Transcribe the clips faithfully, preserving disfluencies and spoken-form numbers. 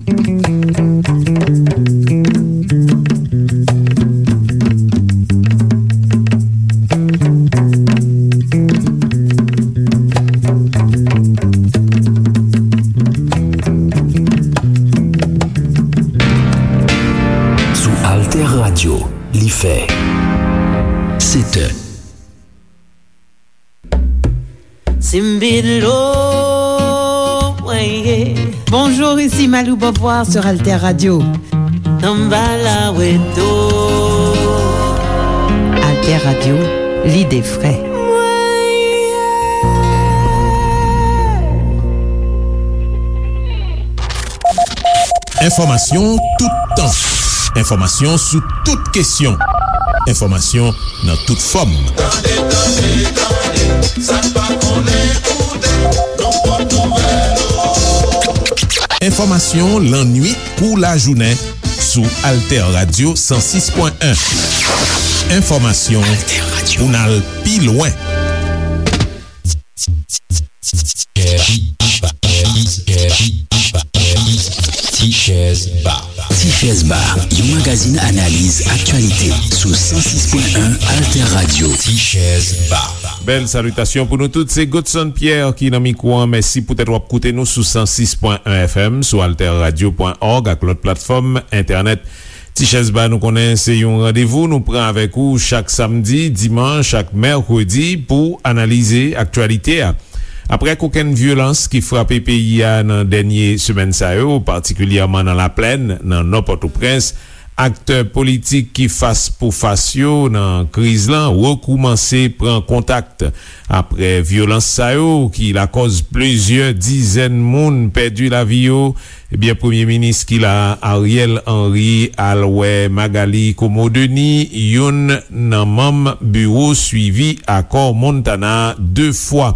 Sou Alter Radio, li fè sèt è. Simbilo, mwen ye. Bonjour, ici Malou Beauvoir sur Alter Radio. Tanbala weto. Alter Radio, l'idée frais. Mwen ye. Enfòmasyon toutan. Enfòmasyon sou tout kesyon. Enfòmasyon nan tout fòm. Tande, tande, tande, sa n pa konnen koute, nan pòt nouvèl. Enfòmasyon lannwit kou lajounen sou Alter Radio san sis pwen en. Enfòmasyon pou n al pi lwen. Tichèz Ba. Tichèz Ba, yon magazin analiz aktyalite sou san sis pwen en Alter Radio. Tichèz Ba. Bèl salitasyon pou nou tout. Se Godson Pierre ki nan mikwo an. Mèsi poutèt w ap koute nou sou san sis pwen en F M, sou alterradio pwen org ak lòt platfòm entènèt. Tichèz Ba, nou konnen se yon randevou nou pran avèk ou chak samdi, dimanch ak mèkredi pou analize aktyalite a. Aprè kokenn vyolans ki frape peyi a nan dènye semèn sa yo, patikilyèman nan Laplèn, nan Nò Pòtoprens, aktè politik ki fas pou fas yo nan kriz lan rekoumanse pran kontak. Aprè vyolans sa yo ki lakòz plizyè dizèn moun pèdi lavi yo, ebyen, Premye Minis ki la a, Ariel Henry, al wè Magalie Comeau-Denis, youn nan manm biwo swivi akò Montana, de fwa.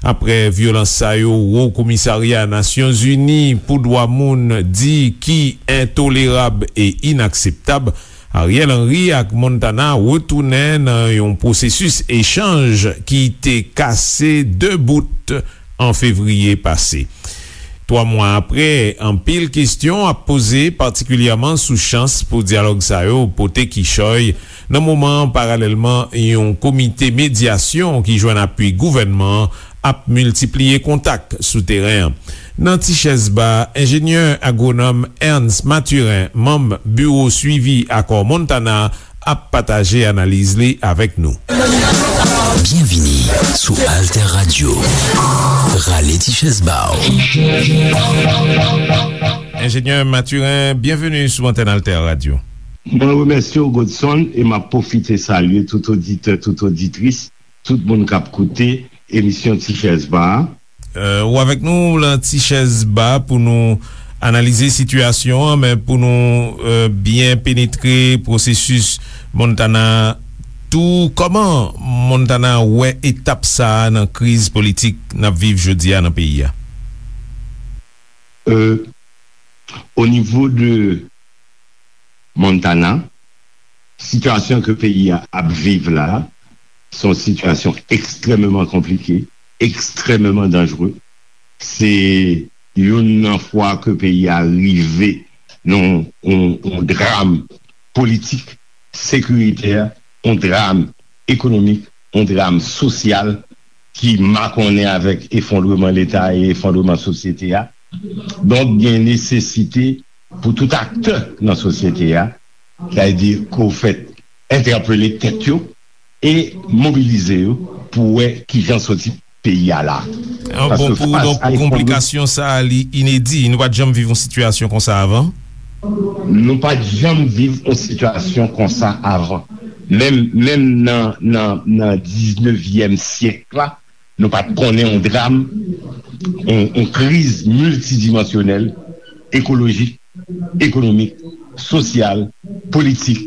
Aprè vyolans sa yo, Wo Komisarya Nasyonzini pou Dwa Moun di ki entolerab e inakseptab, Ariel Henry ak Montana retounen nan yon pwosesis echanj ki te kase de bout an fevriye pase. Twa mwa aprè, anpil kesyon ap poze, patikilyèman sou chans pou dyalòg sa yo pote kichòy, nan moman, paralèlman, yon komite medyasyon ki jwenn apui gouvènman an ap miltipliye kontak sou teren an. Nan Tichèz Ba, enjenyè agwonòm Ernst Mathurin, manm Biwo Swivi Akò Montana, ap pataje analiz li avèk nou. Byenvini sou Alter Radio. Rale ti chèz ba w. Enjenyè Mathurin, byenveni sou antèn Alter Radio. Mwen remèsye w, Godson, e m ap pwofite salye tout oditè, tout oditris, tout moun k ap koute emisyon Ti Chèz Ba a. Euh, ou avèk nou lan Ti Chèz Ba pou nou analize sitiyasyon an, men pou nou, euh, byen penetre pwosesis Montana tou, kòman Montana wè etap sa a nan kriz politik n ap viv jodi a nan peyi a? Euh, o nivo de Montana, sitiyasyon ke peyi a ap viv la, se yon sitiyasyon ekstrèmeman konplike, ekstrèmeman danjere. Se youn nan fwa ke peyi a rive nan yon, yon, yon dram politik, sekiritè, yon dram ekonomik, yon dram sosyal ki makonnen avèk efondreman Leta e efondreman sosyete a. Donk, gen nesesite pou tout aktè nan sosyete a, sa vle di ke w fèt entèpele tèt yo e mobilize yo pou wè kijan soti peyi a la. Ah, bon, pou, donk, pou konplikasyon sa a, li inedi. Nou pa t janm viv yon sitiyasyon konsa avan? Nou pa t janm viv yon sitiyasyon konsa avan. Menm, menm nan, nan, nan diznevyèm syèk la, nou pa t konnen yon dram, yon, yon kriz miltidimansyonèl, ekolojik, ekonomik, sosyal, politik,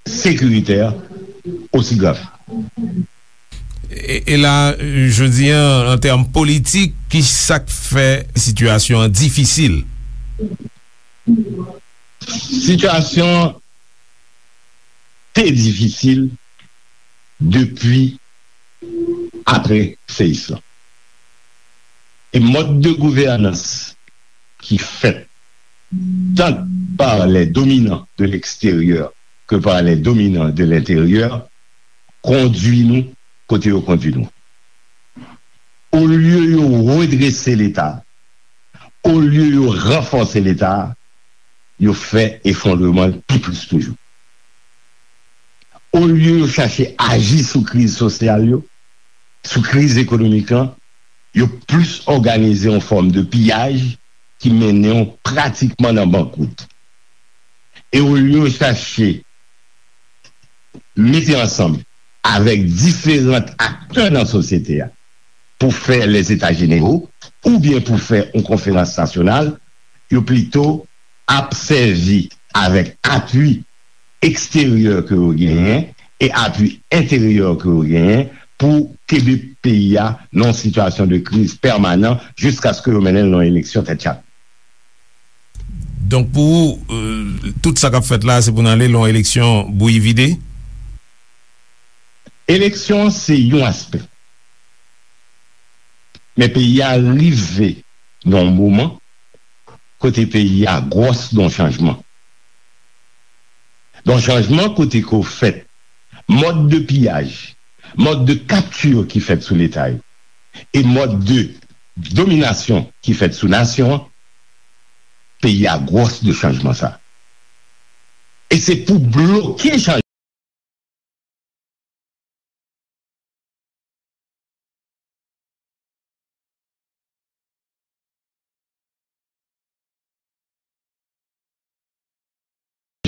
sekiritè, osi grav. E, e la, jodi a, an tèm politik, ki sa k fè sitiyasyon an difisil? Sitiyasyon te difisil depi apre seyis lan. E mòd de gouvènans ki fèt tant par les dominants de l'extérieur que par les dominants de l'intérieur, kondui nou kote yo kondui nou. Olye yo redrese Leta, olye yo ranfòse Leta, yo fè efondreman l pi plis toujou. Olye yo chache aji sou kriz sosyal yo, sou kriz ekonomik lan, yo plis òganize yon fòm de piyaj ki mennen w pratikman nan bankwout. E olye yo chache mete ansanm avèk diferan aktè nan sosyete a pou fè lèzeta jenero oubyen pou fè yon konferans nasyonal, yo plito ap sèvi avèk apui eksteryè ke yo genyen e apui enteryè ke yo genyen pou kenbe peyi a nan yon sitiyasyon de kriz pèmanan jiskaske yo mennen l nan yon eleksyon tèt chak. Donk pou ou, euh, tout sa k ap fèt la, se pou n ale lan yon eleksyon bouyi vide? Eleksyon an se yon aspè. Men peyi a rive nan yon moman kote peyi a gwòs nan chanjman. Nan chanjman kote ke w fèt mòd de piyaj, mòd de kapti ki fèt sou Leta yo, e mòd de dominasyon ki fèt sou nasyon an, peyi a gwòs de chanjman sa. E se pou bloke chanjman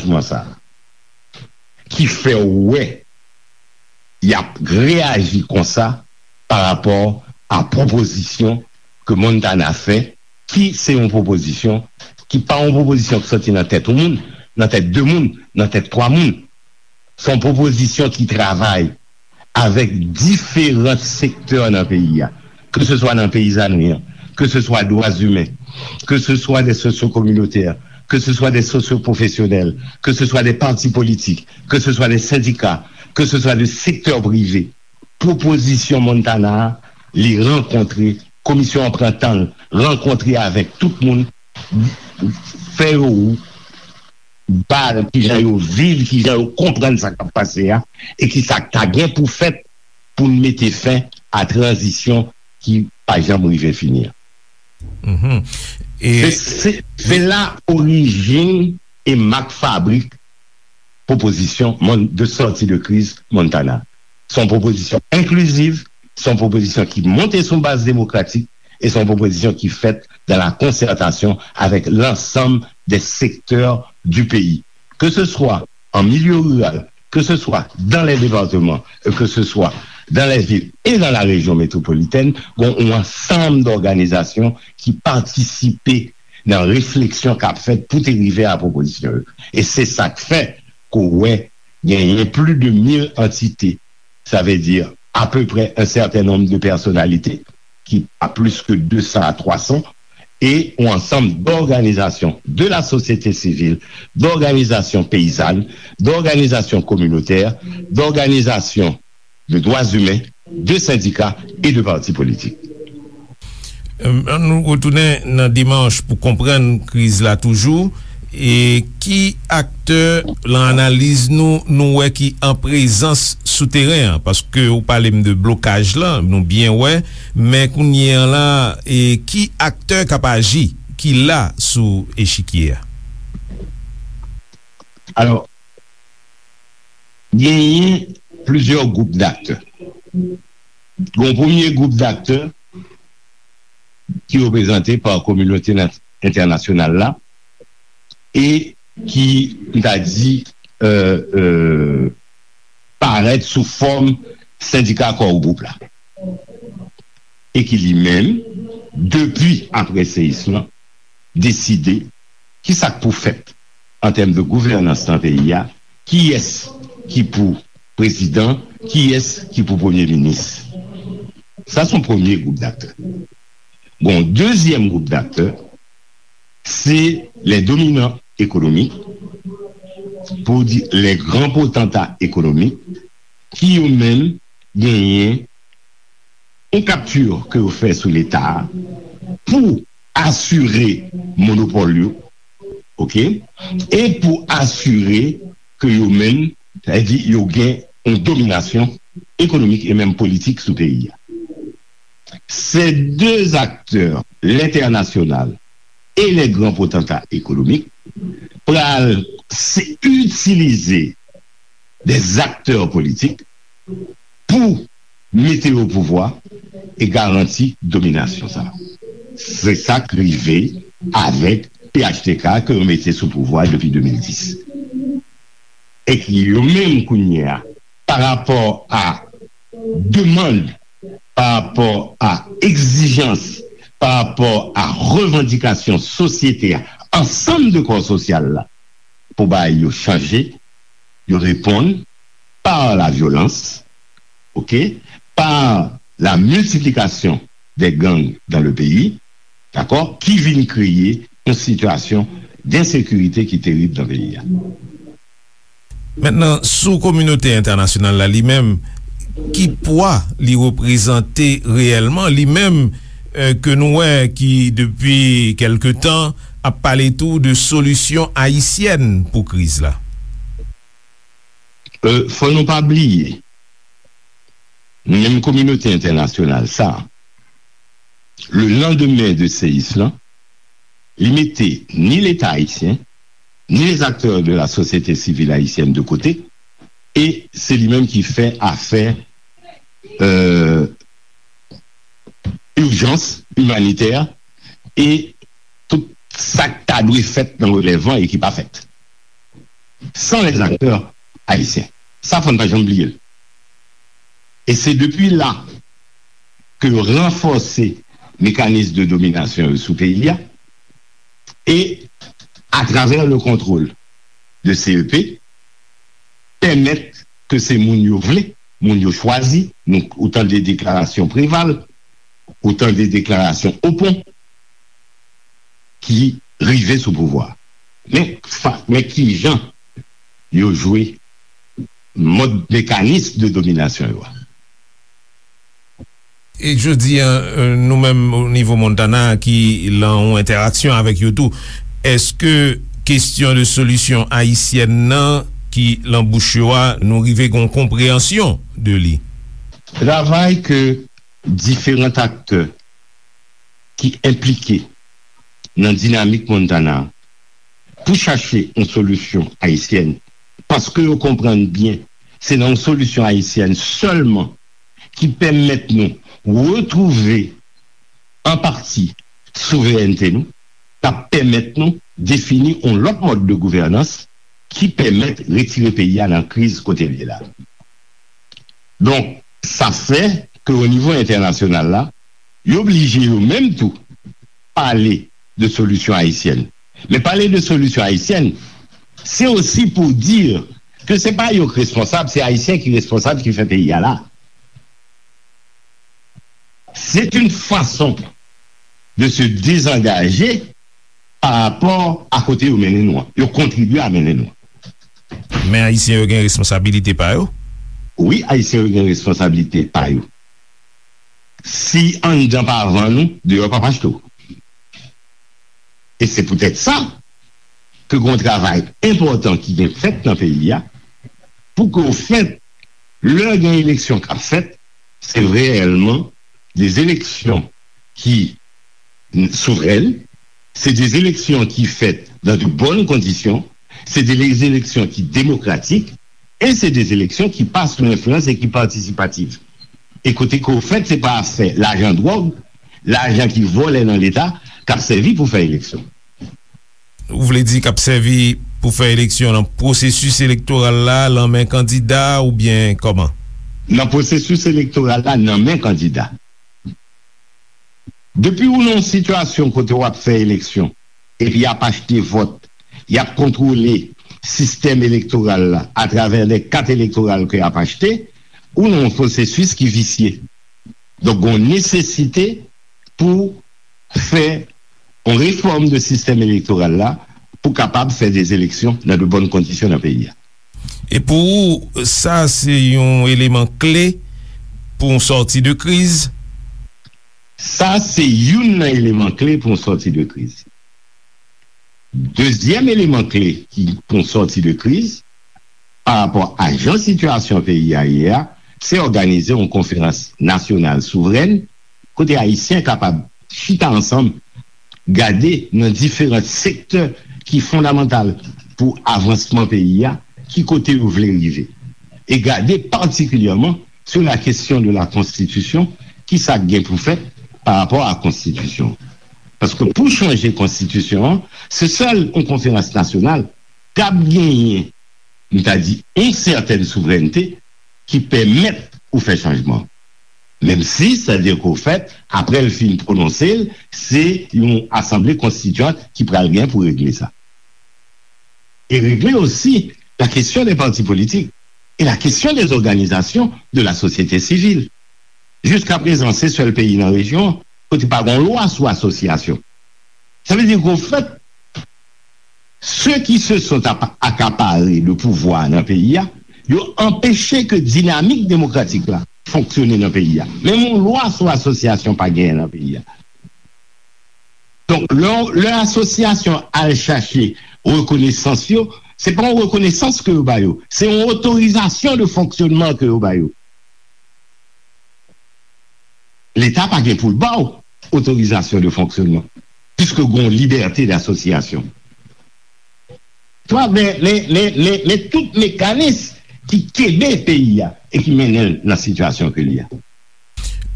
chanjman sa a ki fè w wè y ap reyaji konsa pa rapò a pwopozisyon ke Montana fè, ki se yon pwopozisyon ki pa yon pwopozisyon ki soti nan tèt yon moun, nan tèt de moun, nan tèt twa moun. Se yon pwopozisyon ki travay avèk diferan sektè nan peyi a, ke se swa nan peyizanri an, ke se swa dwa imen, ke se swa de sosyo-kominotè, ke se swa de sosyo-pwofesyonèl, ke se swa de pati politik, ke se swa de sendika, ke se swa de sektè prive. Pwopozisyon Montana a, li rankontre, komisyon an pran tan l, rankontre avèk tout moun, fè yo ba kijan yo viv, kijan yo konprann sa k ap pase a, e kisa k ta gen pou fèt pou n mete fen a tranzisyon ki pa janm rive fini an. Se la orijin e mak fabrik pwopozisyon de sòti de kriz Montana. Se yon pwopozisyon enkliziv, se yon pwopozisyon ki monte sou baz demokratik, e se yon pwopozisyon ki fèt dans la concertation avec l'ensemble des secteurs du pays, que ce soit en milieu rural, que ce soit dans les départements, que ce soit dans les villes et dans la région métropolitaine, gen yon ansanm dòganizasyon ki patisipe nan refleksyon k ap fèt pou te rive a pwopozisyon yo. E se sa k fè ke w wè genyen plis de mil antite, sa vle di apeprè un certain nombre de personnalités, ki pa plis ke de san a twa san, e yon ansanm d'organisations de la société civile, d'organisations paysannes, d'organisations communautaires, d'organisations de droits humains, de syndicats et de partis politiques. Ann nou retounen nan demanch pou konprann kriz la toujou. E ki aktè, lan analiz nou, nou wè ki an prezans sou teren an? Paske ou pale m de blokaj lan, nou byen wè, men kounye an la, e ki aktè k ap aji, ki la sou echikye a? Alò, genyen plizyè gwoup daktè. Gen yon premye gwoup daktè ki reprezante pa kominote entènasyonal la e ki, m ta di, parèt sou fòm sendika Core Group la, e ki li menm, depi apre seyis lan, deside kisa k pou fèt an tèm de gouvènans nan peyi a, kiyès ki pou prezidan, kiyès ki pou premye minis. Sa se yon premye gwoup daktè. Gen yon dezyèm gwoup daktè, se les dominants économiques, pou di les grands potentats économiques, ki yo menm genyen yon kapti ke yo fè sou Leta a pou asire monopòl yo, oke, e pou asire ke yo menm, sa vle di yo gen yon dominasyon ekonomik e menm politik sou peyi a. Ces deux acteurs, l'international et les grands potentats économiques, pral se itilize des acteurs politiques pou mete yo pouvwa e garanti dominasyon sa. Se sa k rive avèk P H T K ke yo mete sou pouvwa depi de mil dis. E ki yo menm kounye a, pa rapò a demann, pa rapò a egzijans, pa rapò a revandikasyon sosyete a, ansanm de kò sosyal la, pou bagay yo chanje, yo reponn par la violence, oke, par la multiplication des gangs dans le pays, dakò, ki vin kreye yon sitiyasyon densekirite ki terib nan peyi a. Mentnan, sou kominote entènasyonal la li menm, ki pwa li reprezante reyèlman, li menm, eh, ke nou wè ki depi kèlke tan ap pale tou de solisyon ayisyèn pou kriz la? Eh, fò nou pa bliye, menm kominote entènasyonal sa, le lendemain de seyis lan, li mete ni Leta ayisyen, ni les acteurs de la société civile haïtienne de côté, e se li menm ki fè afè, euh, ijans imanitè e tout sa k ta dwe fèt nan relèv lan e ki pa fèt. Sans les acteurs haïtiens. Sa, fò n pa janm bliye l. E se depi la ke yo ranfòse mekanis de dominasyon yo sou peyi a, e atravè le contrôle de C E P, pèmèt ke se moun yo vle, moun yo chwazi, nou, ou tande deklarasyon Preval, ou tande deklarasyon Opon, ki rive sou pouvwa. Men, fa, men ki jan yo jwe mòd mekanis de dominasyon yo a. E jodi a, eh, nou menm o nivo Montana ki lan yon entèraksyon avèk yo tou, èske kesyon de solisyon ayisyèn nan ki lan bouch yo a, nou rive gen yon konpreyansyon de li? Travay ke diferan aktè ki enplike nan dinamik Montana pou chache yon solisyon ayisyèn, paske yo konprann byen se nan yon solisyon ayisyèn sèlman ki pèmèt nou retwouve an pati souverènte nou, k ap pèmèt nou defini yon lòt mòd de gouvènans ki pèmèt retire peyi a nan kriz kote l ye la. Donk, sa fè ke o nivo entènasyonal la, yo blije yo menm tou pale de solisyon ayisyèn. Men pale de solisyon ayisyèn, se osi pou di ke se pa yo k responsab, se Ayisyen ki responsab ki fè peyi a la. C'est une façon de se désengager par rapport à kote yo mennen nou an. Yo kontribye a mennen nou an. Men Ayisyen yo gen responsabilite pa yo? Wi, Ayisyen yo gen responsabilite pa yo. Si anndan pa vann ou, deyò p ap achte w. E se poutèt sa ke gen yon travay enpòtan ki gen fèt nan peyi a, pou ke ofèt, lè gen eleksyon k ap fèt, se reyèlman de eleksyon ki souvren, se de eleksyon ki fèt dans de bonnes conditions, se de eleksyon ki demokratik, e se de eleksyon ki pa sou enfliyans e ki patisipativ. E kote ke ofèt, se pa afè lajan dwòg, lajan ki vòlè nan Leta, k ap sèvi pou fè eleksyon. Ou vle di k ap sèvi pou fè eleksyon nan pwosesis elektoral la, lan men kandida oubyen kòman? Nan pwosesis elektoral la, nan men kandida. Depi ou nan yon sitiyasyon kote w ap fè eleksyon, epi y ap achte vòt, y ap kontwole sistèm elektoral la atravè de kat elektoral ke y ap achte, ou nan yon pwosesis ki visye. Donk, gen yon nesesite pou fè yon refòm de sistèm elektoral la pou kapab fè de eleksyon nan de bòn kondisyon nan peyi a. E pou ou, sa se yon eleman kle pou yon sòti de kriz? Sa se youn nan eleman kle pou yon sòti de kriz. Dezyèm eleman kle ki pou sòti de kriz, pa rapò a jan sitiyasyon peyi a ye a, se òganize yon konferans nasyonal souvren, kote Ayisyen kapab chita ansanm, gade nan diferan sektè ki fondamantal pou avansman peyi a, ki kote yo vle rive. E gade patikilyèman sou la kesyon de la konstitisyon, ki sa k gen pou fèt pa rapò a konstitisyon. Paske pou chanje konstitisyon an, se sèl yon konferans nasyonal k ap genyen, m ta di, yon sètèn souvrènte ki pèmèt ou fè chanjman. Menm si, sa di ke w fèt, apre l fin pwononse l, se yon asanble konstitiyant ki pral gen pou regle sa. E regle osi la kesyon de pati politik e la kesyon de òganizasyon de la sosyete sivil. Jiska prezan, se sèl peyi nan rejyon kote pa gen lwa sou asosyasyon. Sa vle di ke, ofèt, ceux qui se sont apa- accaparés le pouvoir nan peyi a, yo anpeche ke dinamik demokratik la fonksyone nan peyi a. Menm yon lwa sou asosyasyon pa genyen nan peyi a. Donk, lè, lè asosyasyon al chache rekonesans yo, se pa yon rekonesans ke yo ba yo, se yon otorizasyon de fonksyonman ke yo ba yo. Leta pa gen pou l ba w otorizasyon de fonksyonman, piske gen yon libète d'association. Twa, men, men, men, men, men tout mekanis ki kenbe peyi a e ki mennen l nan sitiyasyon ke li a.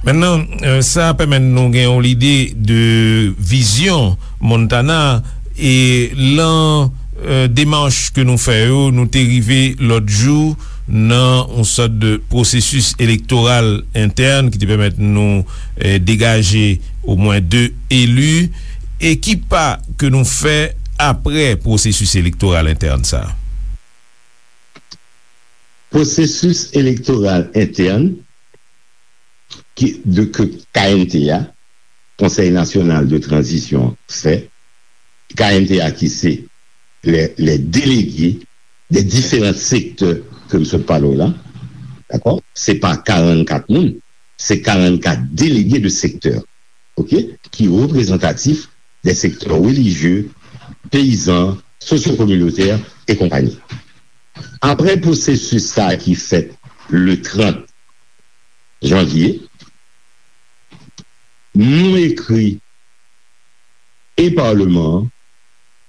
Mentnan, euh, sa pèmèt nou gen yon lide de vizyon Montana e lan, euh, demach ke nou fè yo, nou te rive lòt jou nan yon sòt de pwosesis elektoral entèn ki te pèmèt nou, euh, degaje omwen de eli. E ki pa ke nou fè apre pwosesis elektoral entèn sa a? Pwosesis elektoral entèn ki, de, ke K N T A, Konsèy Nasyonal de Tranzisyon, fè, K N T A ki se les, les délégués des différents secteurs ke m sot pale w la, dakò? Se pa karannkat moun, se karannkat délégués de secteur, oke? Ki reprezantatif des secteurs religieux, peyizan, sosyo-kominotè e konpayi. Apre pwosesis sa a ki fèt le trant janvye, nou ekri e Palman an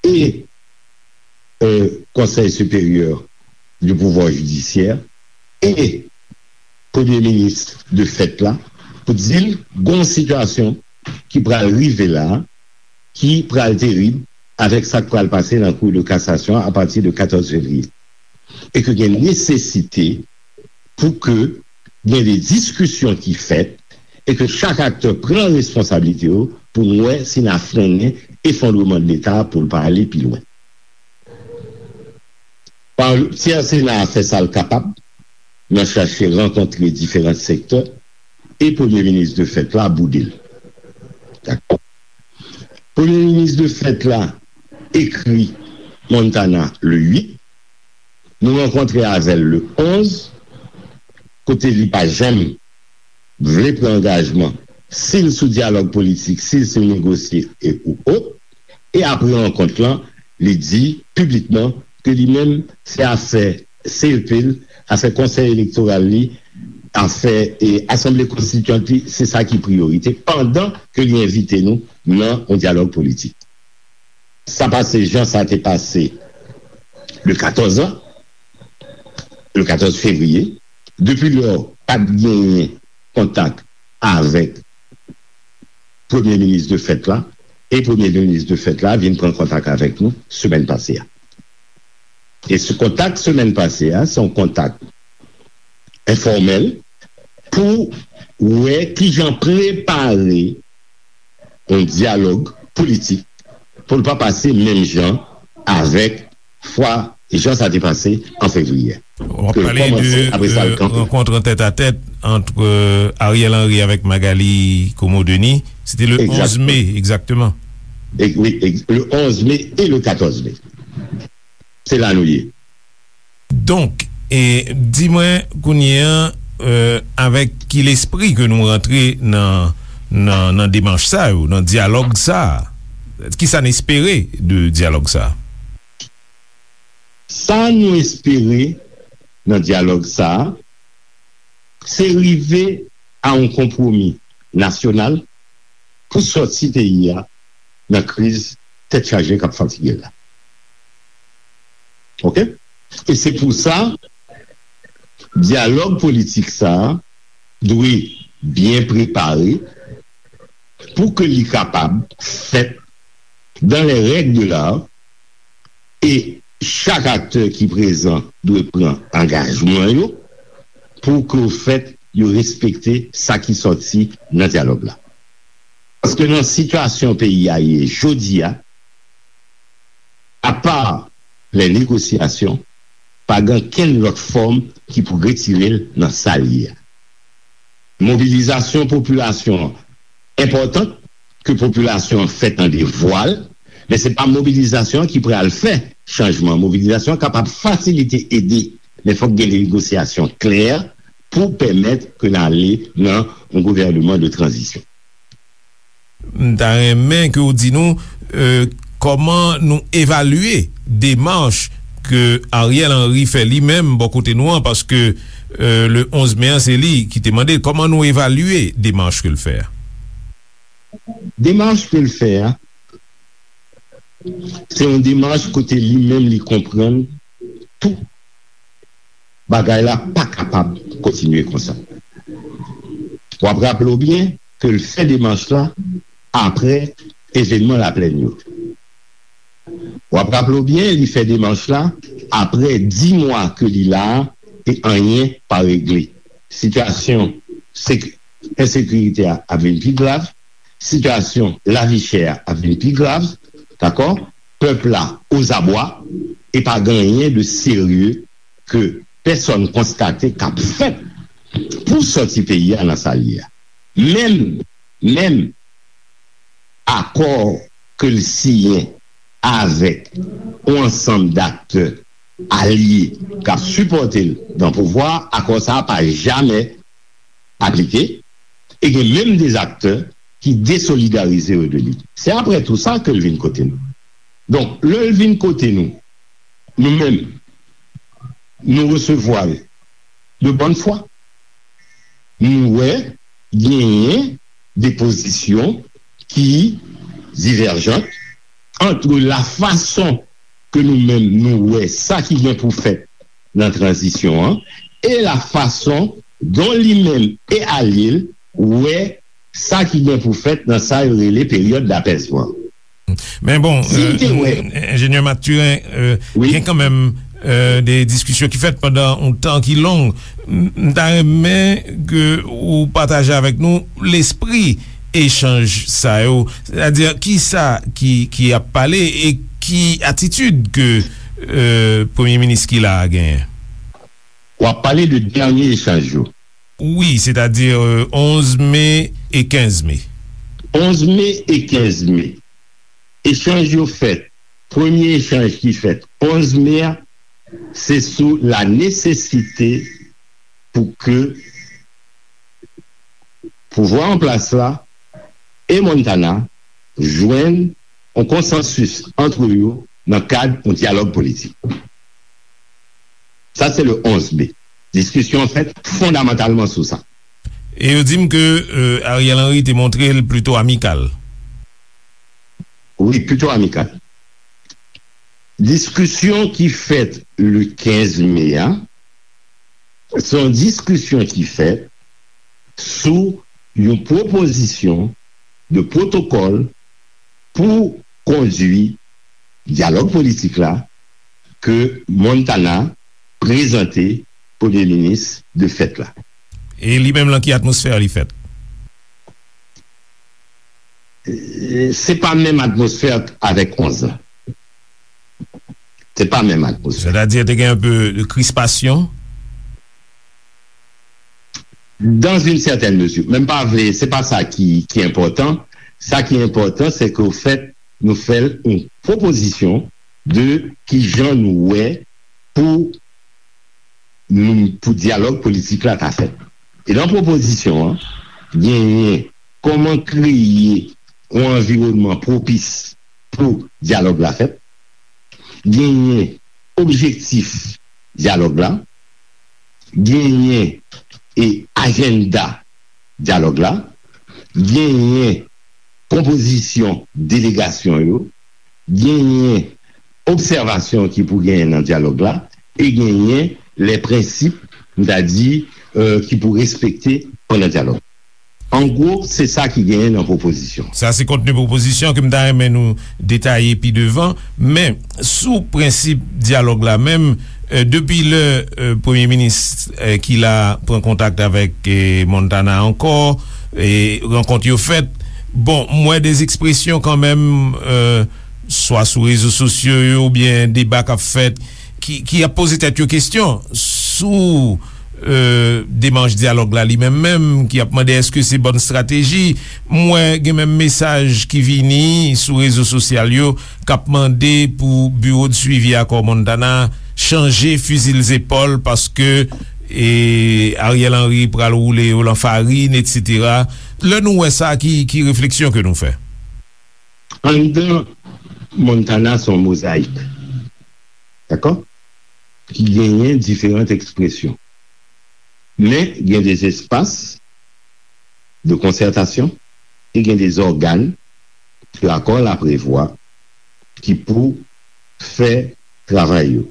e, euh, Conseil supérieur du pouvoir judiciaire e Premye Minis de fèt la pou di l gon sitiyasyon ki pral rive la, ki pral terib avèk sa k pral pase nan Cour de cassation apati de katòz fevriye. E ke gen nesesite pou ke gen de diskisyon ki fèt e ke chak aktè pran responsablite yo pou n wè si n a frennen efondreman de Leta pou l pa ale pi lwen. Ti Sena a fè sa l kapab nan chache rankontre diferan sektè e Premye Minis de fèt la boude l. Dakò? Premye Minis de fèt la ekri Montana le uit. Nou rankontre avè l le onz, kote li pa janm vle pran angajman si l sou dyalòg politik, si l sou negosye e ou ot. E apre rankont lan, li di piblikman ke li menm se afè C E P l, afè konsèy elektoral li, afè, e, asanble konstitiyant li, se sa ki priyorite, pandan ke li envite nou nan yon dyalòg politik. Sa pase jan sa te pase le katòz an, le katòz fevriye. Depi lò, pa t genyen kontak avèk Premye Minis de fèt la, e Premye Minis de fèt la vin pran kontak avèk nou semèn pase a. E se kontak semèn pase a, se yon kontak enfòmèl pou wè kijan prepare yon dyalòg politik pou l pa pase menm jan avèk fwa jan sa te pase an fevriye. W ap pale de, euh, rankont an tèt a tèt ant, euh, Ariel Henry avèk Magalie Comeau-Denis. Se te le onz me, egzakteman. E, wi, ex-, le onz me e le katòz me. Se la nou ye. Donk, e, di mwen kounye a, euh, avèk ki lespri ke nou rantre nan, nan, nan demach sa yo, nan dyalòg sa a? Kisa n espere de dyalòg sa a? Sa nou espere nan dyalòg sa a, se rive a yon konpwomi nasyonal pou sòti peyi a nan kriz tèt chaje k ap fatige l la. Oke? E se pou sa, dyalòg politik sa a dwe byen prepare pou ke li kapab fèt dans les règles de l'art, e chak aktè ki prezan dwe pran angajman yo pou ke, ofèt, yo respekte sa ki sòti nan dyalòg la. Paske nan sitiyasyon peyi a ye jodi a, apa lè negosyasyon, pa gen kenn lòt fòm ki pou retire l nan sa l ye a. Mobilizasyon popilasyon an enpòtan, ke popilasyon an fè tande vwa l, men se pa mobilizasyon an ki pral fè chanjman. Mobilizasyon an kapab fasilite, ede, men fòk gen negosyasyon klè pou pèmèt ke n ale nan yon gouvènman de tranzisyon. M ta renmen ke w di nou, euh, kòman nou evalye demach ke Ariel Henry fè li menm bò kote nou an, paske, euh, le onz me an, se li ki te mande l. Kòman nou evalye demach ke l fè a? Demach ke l fè a, se yon demach kote li menm li konprann tou bagay la pa kapab kontinye konsa. W ap raple w byen ke l fè demach la apre evènman Laplèn yo. W ap raple w byen, li fè demach la apre dis mwa ke li la a e anyen pa regle. Sitiyasyon sek-, ensekirite a ap vin pi grav, sitiyasyon lavi chè a ap vin pi grav, dakò? Pèp la ozabwa e pa gen anyen de serye ke pèsòn konstate k ap fèt pou sòti peyi a nan sa l ye a. Menm, menm akò ke l siyen avèk yon ansanm daktè alye k ap sipòte l nan pouvwa a, akò sa a pa jamè aplike, e gen menm de aktè ki desolidarize yo de li. Se apre tou sa ke l vin kote nou. Donk, lè l vin kote nou, nou menm, nou resevwa l de bòn fwa. Nou wè genyen de pozisyon ki divèjan ant la fason ke nou menm nou wè sa ki gen pou fèt nan tranzisyon an e la fason dont li menm e alye l wè sa ki gen pou fèt nan sa yo rele peryòd dapèzman. Men bon, si m te wè, enjenyè Mathurin, gen kanmenm de diskisyon ki fèt pandan yon tan ki long. M ta renmen ke ou pataje avèk nou lespri echanj sa yo, sètadi kisa ki, ki ap pale e ki atitid ke premye minis ki la a genyen. W ap pale de dènye echanj yo. Wi, sètadi onz me e kenz me. Onz me e kenz me. Echanj yo fèt. Premye echanj ki fèt onz me a, se sou la nesesite pou ke pouvwa an plas la e Montana jwenn yon konsansis ant yo nan kad yon dyalòg politik. Sa se le onz me. Diskisyon an fèt fondamantalman sou sa. E yo di m ke Ariel Henry te montre l plito amikal. Wi, plito amikal. Diskisyon ki fèt le kenz me a, se yon diskisyon ki fèt sou yon pwopozisyon de pwotokòl pou kondui dyalòg politik la ke Montana prezante premye minis de fèt la. E li menm, lan ki atmosfè li fèt? Se pa menm atmosfè avèk onz la. Se pa menm atmosfè. Sètadi te gen yon pe de krispasyon? Dans une certaine mesure. Men m pa vle, se pa sa ki, ki enpòtan. Sa ki enpòtan, se ke, ofèt, nou fè l yon pwopozisyon de kijan nou wè pou nou, pou dyalòg politik la ta fèt. E nan pwopozisyon an, genyen kòman kreye yon anviwònman pwopis pou dyalòg la fèt, genyen objektif dyalòg la, genyen e ajanda dyalòg la, genyen konpozisyon delegasyon yo, genyen obsèvasyon ki pou genyen nan dyalòg la, e genyen lè prensip, m ta di, euh, ki pou respekte pandan dyalòg. An gwo, se sa ki genyen nan pwopozisyon. Sa se kontni pwopozisyon ke m ta renmen nou detaye pi devan, men sou prensip dyalòg la menm, euh, depi lè, euh, premye minis, euh, ki la pran kontak avèk, euh, Montana ankò, e rankont yo fèt, bon, m wè de ekspresyon kanmenm, euh, swa sou rezo sosyo yo oubyen deba k ap fèt, ki, ki ap poze tèt yo kesyon sou, euh, demach dyalòg la li menm menm, ki ap mande èske se bòn estrateji. M wè gen menm mesaj ki vini sou rezo sosyal yo k ap mande pou biwo de swivi akò Montana chanje fizi l zepòl paske, e, Ariel Henry pral woule yo lan farin, etsetera. Lè nou wè sa, ki, ki refleksyon ke nou fè? Anndan Montana se yon mozayik, dakò? Ki genyen diferan ekspresyon. Men gen de espas de konsètasyon e gen de ògàn ke akò la prevwa ki pou fè travay yo.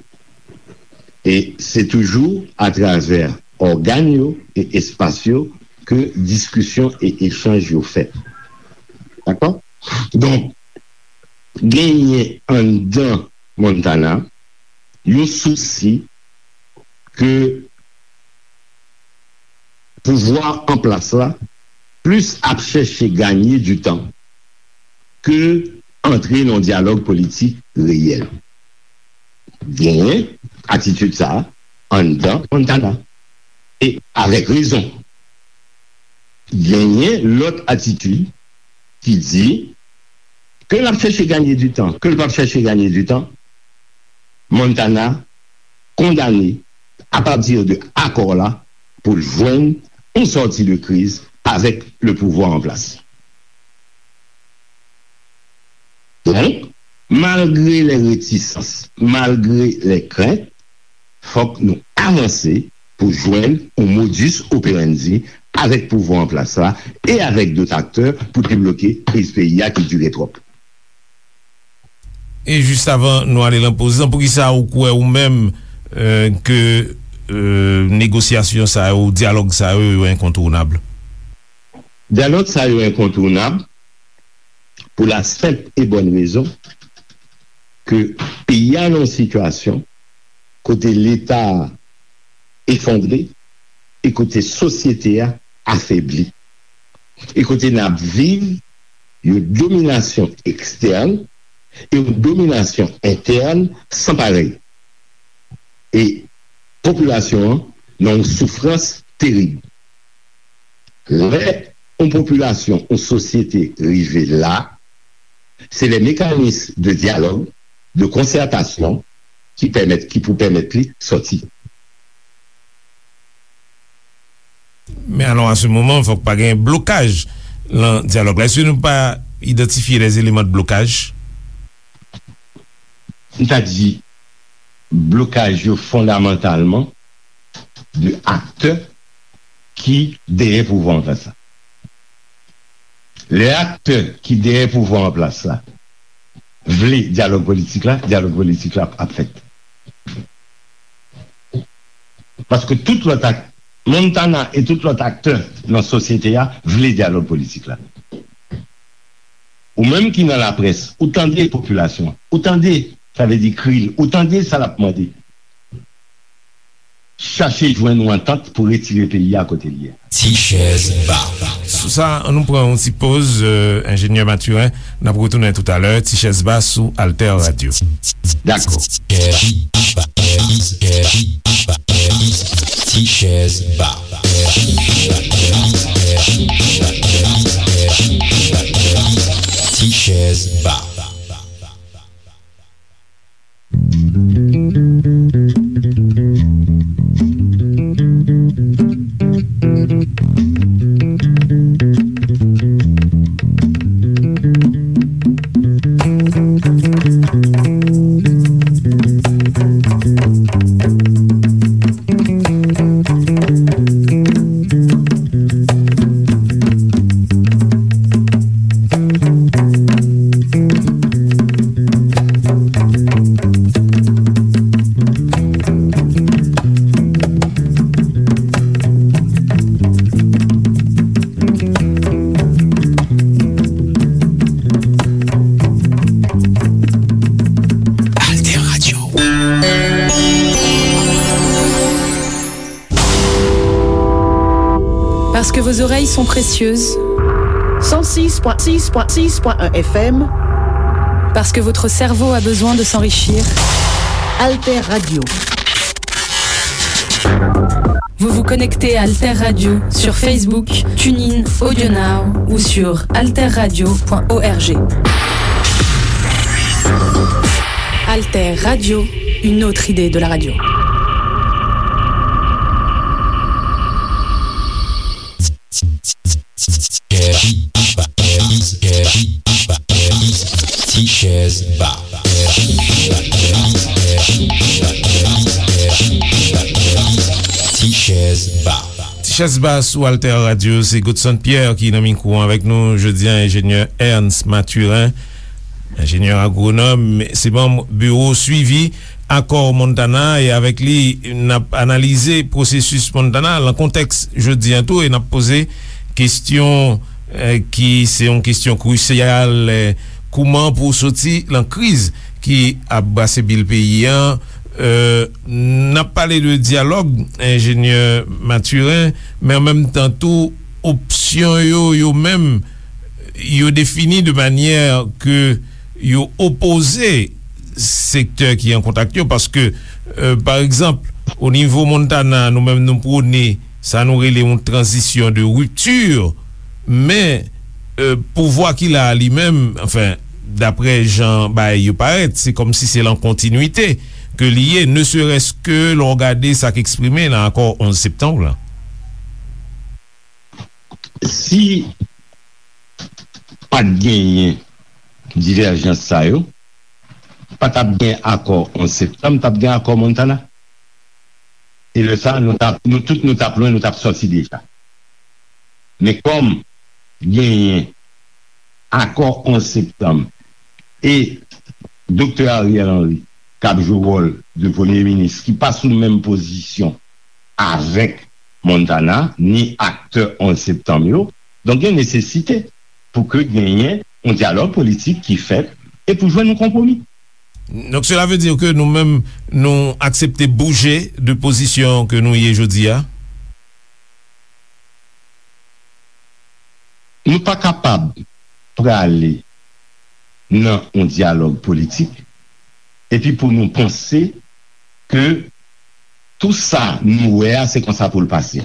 E se toujou atravè ògàn yo e espas yo ke diskisyon e echanj yo fèt. Dakò? Donk, genyen anndan Montana yon sousi ke pouvwa an plas la plis ap chèche ganye di tan ke antre nan yon dyalòg politik reyèl. Genyen atitid sa a anndan Montana. E avèk rezon. Genyen lòt atitid ki di ke l ap chèche ganye di tan, ke l p ap chèche ganye di tan, Montana kondane, apati de akò la, pou l jwenn yon sòti de kriz avèk le pouvwa an plas. Donk, malgre lè retisans, malgre lè krent, fòk nou avanse pou jwenn yon modus operandi avèk pouvwa an plas la e avèk dòt aktè pou debloke kriz peyi a ki dire twòp. E jis avan nou ale lan poz lan, poukisa ou kwè ou menm, euh, ke, euh, negosyasyon sa yo, dyalòg sa yo, yo enkontounab? Dyalòg sa yo enkontounab pou la senp e bòn rezon ke peyi a nan yon sitiyasyon kote Leta a efondre e kote sosyete a afebli. E kote n ap viv yon dominasyon ekstèn e yon dominasyon entèn san parèy. E popilasyon an nan yon soufrans terib. Lè yon popilasyon, yon sosyete rive la, se lè mekanis de dyalòg, de konsètasyon ki pèmèt, ki pou pèmèt li sòti. Men alò, a se moman, fòk pa gen blokaj lan dyalòg la. Èske nou pa idantifye des éléments de blocage? M ta di, blokaj yo fondamantalman de aktè ki dèyè pouvwa an plas la. Lè aktè ki dèyè pouvwa an plas la vle dyalòg politik la, dyalòg politik la ap fèt. Paske tout lòt ak-, Montana e tout lòt aktè nan sosyete a vle dyalòg politik la. Ou menm ki nan laprès, ou tande popilasyon, ou tande, sa vle di kri l, ou tande sa l ap mande. Chache jwenn yon antant pou retire peyi a kote l ye a. Ti chèz ba. Sou sa, ann nou pran yon ti poz, euh, enjenyè Mathurin. N ap retounen toutalè. Ti chèz ba sou Alter Radio. Dakò. Ti chèz ba. Ti chèz ba. oreilles sont précieuses. Cent six point six point six point un F M. Parce que votre cerveau a besoin de s'enrichir. Alter Radio. Vous vous connectez à Alter Radio sur Facebook, TuneIn, AudioNow ou sur alter radio point org. Alter Radio, une autre idée de la radio. Tichèz Ba. Tichèz Ba. Tichèz Ba sou Alter Radio, se Godson Pierre ki nan mikwo avèk nou jodi a, enjenyè Ernst Mathurin. Enjenyè agwonòm, se manm biwo swivi akò Montana, e avèk li, n ap analize pwosesis Montana lan kontèks jodi a tou, e n ap poze kesyon, eh, ki se yon kesyon krisyal, eh, kouman pou soti lan kriz ki ap brase bil peyi a. Eh, n ap pale de dyalòg, enjenyè Mathurin, men an menm tan tou, opsyon yo, yo menm, yo defini de manyè ke yo opoze sektè ki an kontak yo, paske, eh, pa egzanp, o nivo Montana, nou menm nou pwone sa nou rele yon tranzisyon de ripti, men, eh, pouvwa ki la a li menm, anfen, daprè jan bagay yo parèt, se kòmsi se lan kontinwite ke li ye, ne serait-ce que lè w gade sa k eksprime lan akò onz septanm lan. Si pa t genyen divèjans sa yo, pa t ap gen akò onz septanm, t ap gen akò Montana. E lè sa, nou t ap, nou tout, nou t ap lwen, nou t ap sòti deja. Men kòm genyen akò onz septanm e Doktè Ariel Henry k ap jwe wòl de premye minis, ki pa sou menm pozisyon avèk Montana, ni aktè onz septanm yo, donk gen nesesite pou ke genyen yon dyalòg politik ki fèt e pou jwenn yon konpwomi. Donk, cela veut dire que nou menm, nou aksepte bouje de pozisyon ke nou ye jodi a? Nou pa kapab prale nan yon dyalòg politik epi pou nou panse ke tou sa nou wè a, se konsa pou l pase.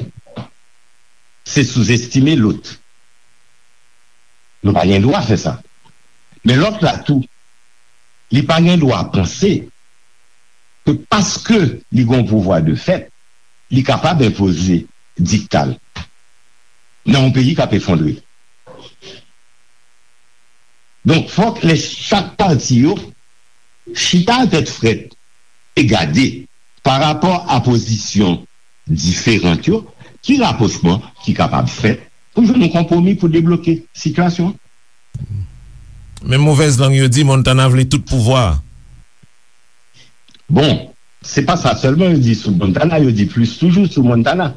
Se souzestime lòt. Nou pa gen dwa fè sa. Men lòt la tou, li pa gen dwa panse ke paske li gen yon pouvwa de fèt, li kapab enpoze dikta l nan yon peyi k ap efondre. Donk, fòk lè chak pati yo chita tèt frèt e gade, pa rapò a pozisyon diferan yo, ki rapwochman ki kapab fèt pou jwenn yon konpwomi pou debloke sitiyasyon an. Men movèz lang yo di Montana vle tout pouvwa a. Bon, se pa sa sèlman yo di sou Montana, yo di plis toujou sou Montana.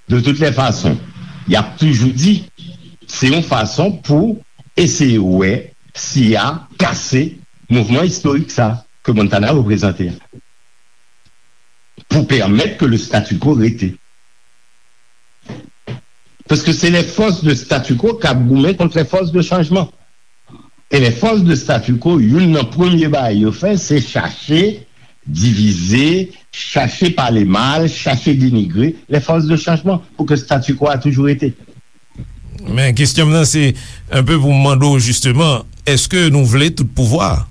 De toutes les façons, y ap toujou di, se yon fason pou eseye wè si y a kase mouvman istorik sa ke Montana reprezante a, pou pèmèt ke le statu quo rete. Paske se les forces de statu quo k ap goumen kont les forces de changement. E les forces de statu quo, youn nan premye bagay yo fè, se chache divize, chache pale mal, chache denigre les forces de changement pou ke statu quo a toujou rete. Men kesyon m nan se, enpe pou m mande w jisteman, èske nou vle tout pouvwa a?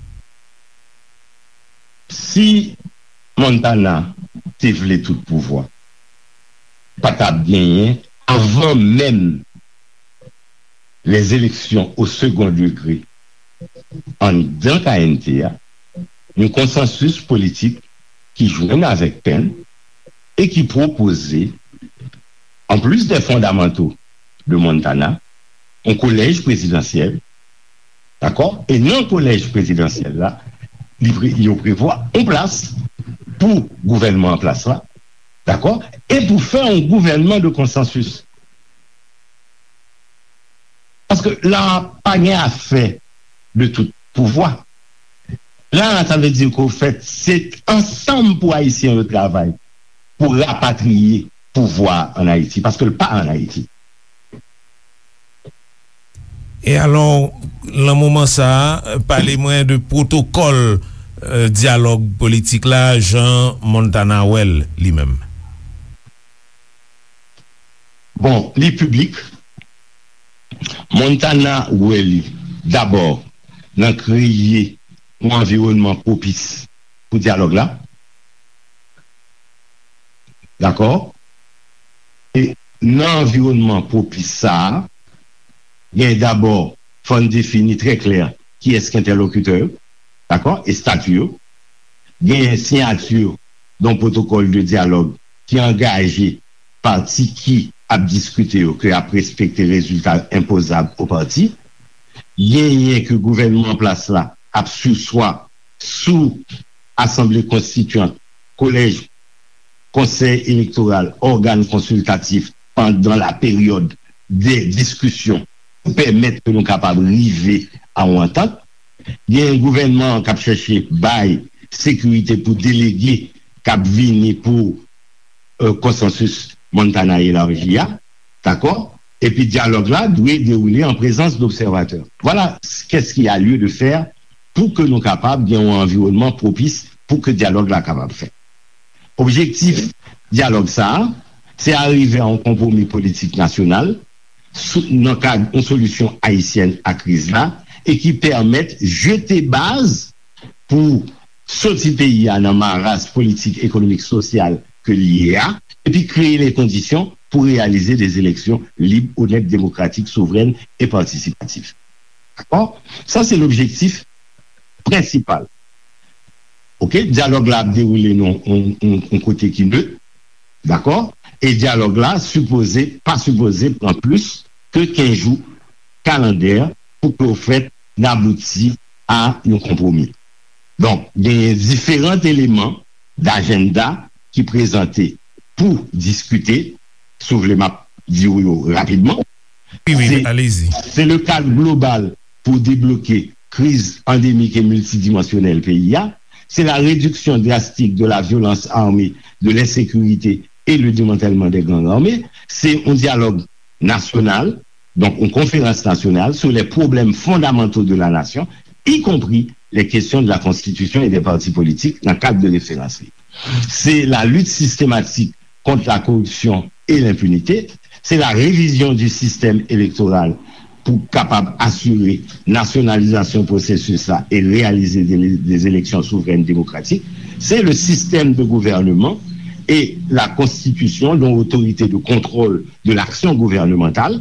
Si Montana te vle tout pouvwa, pa t ap genyen, avan menm les élections au second degré anndan K N T a, yon konsansis politik ki jwenn avèk Pèn e ki pwopoze, en plus des fondamentaux de Montana, yon kolèj prezidansyèl, dakò? E nan kolèj prezidansyèl la, li pre-, yo prevwa yon plas pou gouvènman an plas la, dakò? E pou fè yon gouvènman de konsansis. Paske la, pa gen afè de tout pouvwa. La, sa vle di ke, ofèt, se ansanm pou Ayisyen yo travay pou rapatriye pouvwa an Ayiti, paske l pa an Ayiti. E alò, nan moman sa a, pale mwen de pwotokòl, euh, dyalòg politik la, jan Montana wè l, li menm. Bon, li piblik. Montana wè li, dabò, nan kreye yon anviwònman pwopis pou dyalòg la. Dakò? E nan anviwònman pwopis sa a, gen dabò, fò n defini trè klè kiyès ki entèlokitè yo, dakò, e stati yo. Gen siyati yon pwotokòl de dyalòg ki angaje pati ki ap diskite yo ke ap respekte rezilta enpozab o pati. Genyen ke gouvènman an plas la ap siswa sou asanble konstityant, kolèj, konsèy elektoral, ògàn konsiltatif pandan la peryòd de diskisyon pou pèmèt ke nou kapab rive a yon antant. Gen gouvènman an k ap chèche bay sekirite pou delege k ap vini pou euh, konsansis Montana elaji a, dakò? Epi dyalòg la dwe dewoule an prezans dobsèvatè. Vwala qu'est-ce qu'il y a lieu de faire pou ke nou kapab gen yon anviwònman pwopis pou ke dyalòg la kapab fèt. Objektif dyalòg sa a, se arive a yon konpwomi politik nasyonal sou, nan kad yon solisyon ayisyèn a kriz la e ki pèmèt jete baz pou soti peyi a nan maraz politik, ekonomik, sosyal ke li ye a, epi kreye le kondisyon pou reyalize de eleksyon lib, onèt, demokratik, souvrèn e patisipatif. Dakò? Sa se lobjektif prensipal. Oke, dyalòg la ap dewoule nan yon kote ki nèt, dakò? E dyalòg la sipoze, pa sipoze pran plis ke kenz jou kalandè pou ke w fèt n abouti a yon konpwomi. Donk, genyen diferan eleman dajennda ki prezante pou diskite, si w vle m ap di w yo rapidman. Wi, wi, alezi. Se le kad global pou debloke kriz andemik e miltidimansyonèl peyi a, se la réduction drastique de la violence armée, de l'insécurité et le démantèlement des gangs armés, se yon dyalòg nasyonal, donk yon konferans nasyonal sur les problèmes fondamentaux de la nation, y compris les questions de la constitution et des partis politiques nan kad de referans li. Se la lutte systématique contre la corruption et l'impunité, se la révision du système électoral pou kapab asire nasyonalizasyon pwosesis la e reyalize de, de eleksyon souvrèn demokratik, se le système de gouvernement et la constitution d'une autorité de contrôle de l'action gouvernementale,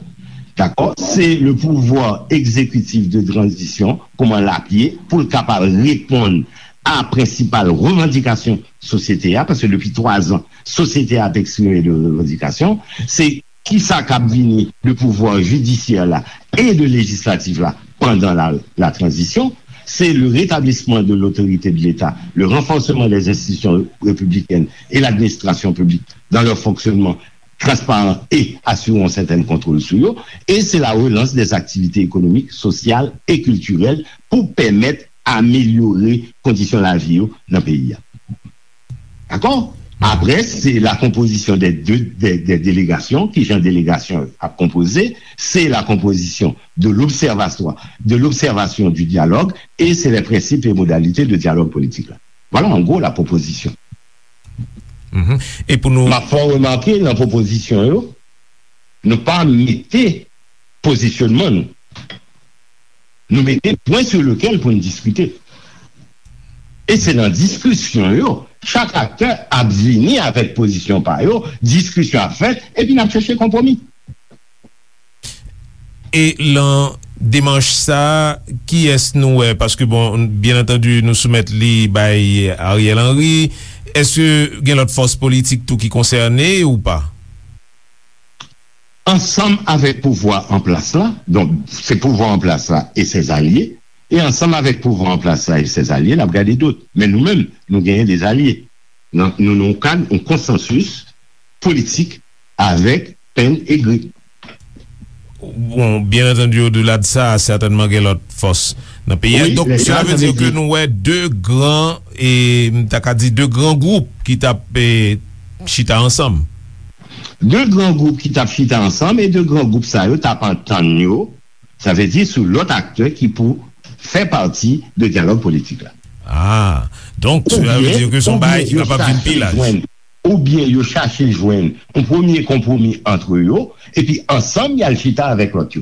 dakò, se le pouvoir exécutif de transition, kòman l ap ye, pou l kapab reponn a prensipal revandikasyon sosyete a, paske depi twa zan, sosyete a ap eksprime de revandikasyon, se kisa k ap vini de pouvwa jidisyè la e de lejislatif la pandan la, la transition, c'est le rétablissement de l'autorité de l'État, le renforcement des institutions républicaines et l'administration publique dans leur fonctionnement transparent et assurer un certain contrôle sur eux, et c'est la relance des activités économiques, sociales et culturelles pour permettre améliorer conditions de la vie dans le pays. D'accord? Après, c'est la composition des deux des, des délégations, qui j'ai une délégation à composer, c'est la composition de l'observatoire, de l'observation du dialogue, et c'est les principes et modalités de dialogue politique. Là. Voilà en gros la proposition. E pou nou. M ap fè w remake nan pwopozisyon yo, nou pa mete pozisyonman nou. Nou mete pwen sou lekel pou n diskite. E se nan diskisyon yo, chak aktè ap vini avèk pozisyon pa yo, diskisyon ap fèt, epi n ap chèche konpwomi. E lan demach sa, kiyès nou wè? Paske, bon, byen antandi, nou soumèt li bay Ariel Henry. Èske gen lòt fòs politik tou ki konsène ou pa? Ansanm avèk pouvwa an plas la, donk, se pouvwa an plas la e sèzalye, e ansanm avèk pouvwa an plas la e sèzalye, n ap gade dòt. Men nou menm, nou genyen dezalye. Nou nan yon kad, yon konsansis politik avèk Penn e Gri. Bon, byen antandi, odela de sa, sètènman gen lòt fòs nan peyi a. Donk, sela vle di ke nou wè de gran, e m ta ka di de gran gwoup ki t ap chita ansanm. De gran gwoup ki t ap chita ansanm, e de gran gwoup sa yo t ap antann yo Sa vle di sou lòt aktè ki pou fè pati de dyalòg politik la. Ah, donk, sa vle di ke se yon bagay ki kapab vin pi laj. Oubyen yo chache jwenn yon premye konpwomi ant yo, epi ansanm y al chita avèk lòt yo.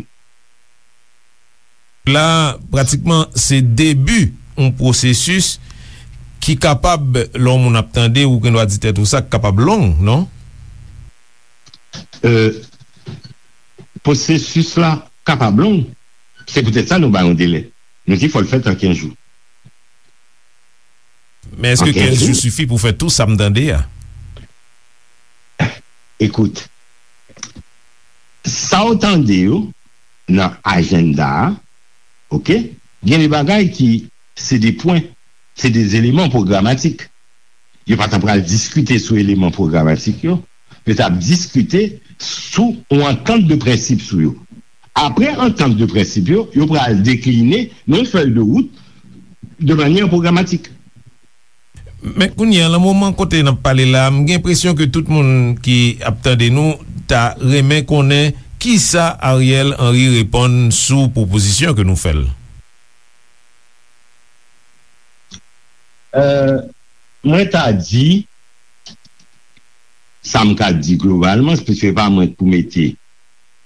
La, pratikman, se debi yon pwosesis ki kapab, lè yon moun ap tande, ou gen dwa di tèt ou sa, k kapab long, non? Euh, pwosesis la kapab long. Se poutèt sa nou ba yon delè. Nou di fò l fèt an kenz jou. Men èske kenz jou sifi pou fè tou sa m tande a? Ekout, sa w tande yo nan ajanda a, oke, gen de bagay ki se de pwen, se de eleman pwogramatik. Yo pa t ap pral diskite sou eleman pwogramatik yo, yo t ap diskite sou yon antant de prensip sou yo. Apre antant de prensip yo, yo pral dekline nan yon fèy de wout de manyè pwogramatik. Men kounye a, nan moman kote n ap pale la, m gen enpresyon ke tout moun ki ap tande nou ta renmen konnen kisa Ariel Henry reponn sou pwopozisyon ke nou fè l. Euh, mwen ta di, sa m ka di globalman, se pa mwen k pou mete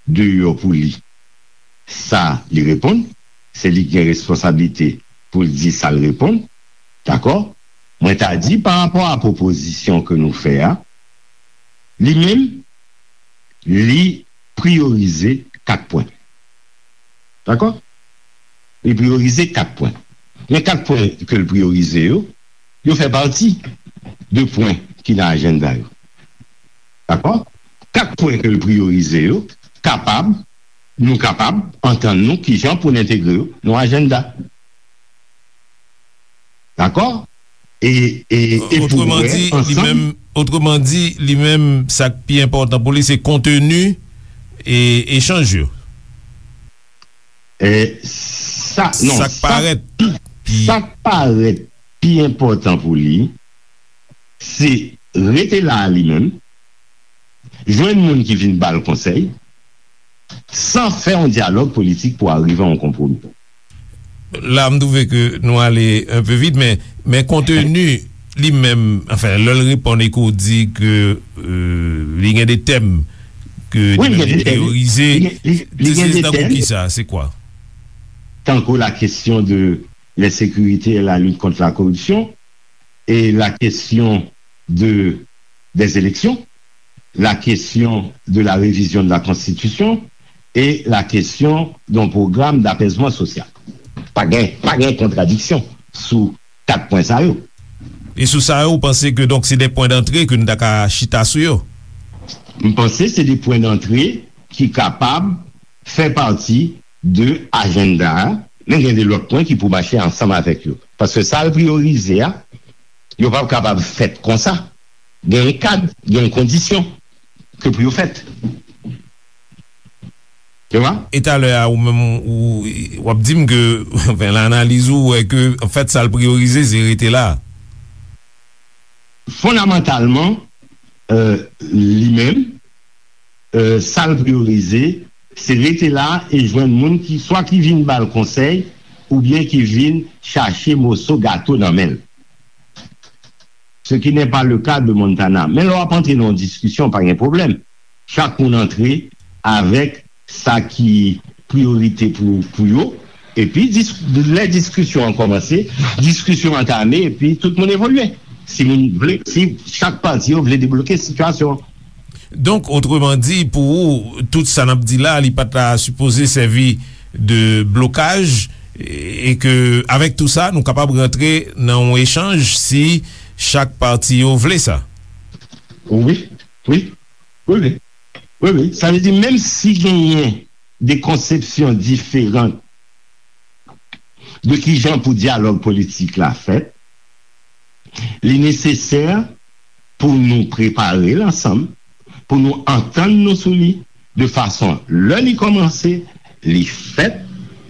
deyò pou li sa li reponn, se li ki gen responsablite pou l di sa l reponn, dakò? Mwen ta di pa rapò a pwopozisyon ke nou fè a, li menm, li priyorize kat pwen. Dakò? Li priyorize kat pwen. Men kat pwen ke l priyorize yo, yo fè pati de pwen ki nan ajanda yo. Dakò? Kat pwen ke l priyorize yo, kapab, nou kapab antann nou kijan pou n entegre yo nan ajanda. Dakò? E, e, e pou wè ansanm. Otreman di, li menm, otreman di, li menm, sa k pi enpòtan pou li, se konteni e echanj yo. E sa, non, sa k parèt pi, sa k parèt pi enpòtan pou li, se rete la a li menm, jwenn moun ki vin ba l konsèy, san fè yon dyalòg politik pou arive a yon konpwomi. La, m twouve ke nou ale un peu vit, men, men konteni li menm, anfen, lè l reponn e ke w di ke, euh, li gen de tèm ke li menm li priyorize, se tankou kisa, se kwa? Tankou la question de l'insécurité et la lutte contre la corruption, et la question de, des élections, la question de la révision de la Constitution et la question d'un programme d'apaisement social. Pa gen, pa gen kontradiksyon sou kat pwen sa yo. E sou sa yo, ou panse ke donk se de pwen dantre ke nou ta ka chita sou yo? M panse se de pwen dantre ki kapab fè pati de ajanda a, men gen de lòt pwen ki pou mache ansanm avèk yo. Paske sa l priyorize a, yo p ap kapab fèt konsa. Gen yon kad, gen yon kondisyon ke pou yo fèt. Ou wè? E talè a, ou menm, ou, w ap di m ke, anfen, nan analiz ou, ou wè ke, anfèt, sa l priyorize, se rete la. Fondamantalman, euh, li menm, euh, sa l priyorize, se rete la e jwenn moun ki, swa ki vin ba l konsèy, oubyen ki vin chache moso gato nan men l. Ce qui n'est pas le cas de Montana. Men lè w ap antre nan yon diskisyon, pa gen pwoblèm. Chak moun antre avèk sa ki priyorite pou, pou yo. Epi, dis-, lè diskisyon an kòmanse, diskisyon antame, epi tout moun evolye. Si moun vle, si chak pati yo vle debloke sitiyasyon an. Donk, otreman di, pou ou, tout sa n ap di la, li pa ta sipoze sèvi de blokaj, e, e ke, avèk tou sa, nou kapab rantre nan yon echanj si chak pati yo vle sa. Wi, wi, wi, wi. Wi, wi. Sa vle di, menm si genyen de konsepsyon diferan de kijan pou dyalòg politik la fèt, li nesesè pou nou prepare l ansanm, pou nou antann nou sou li, de fason lè li kòmanse, li fèt,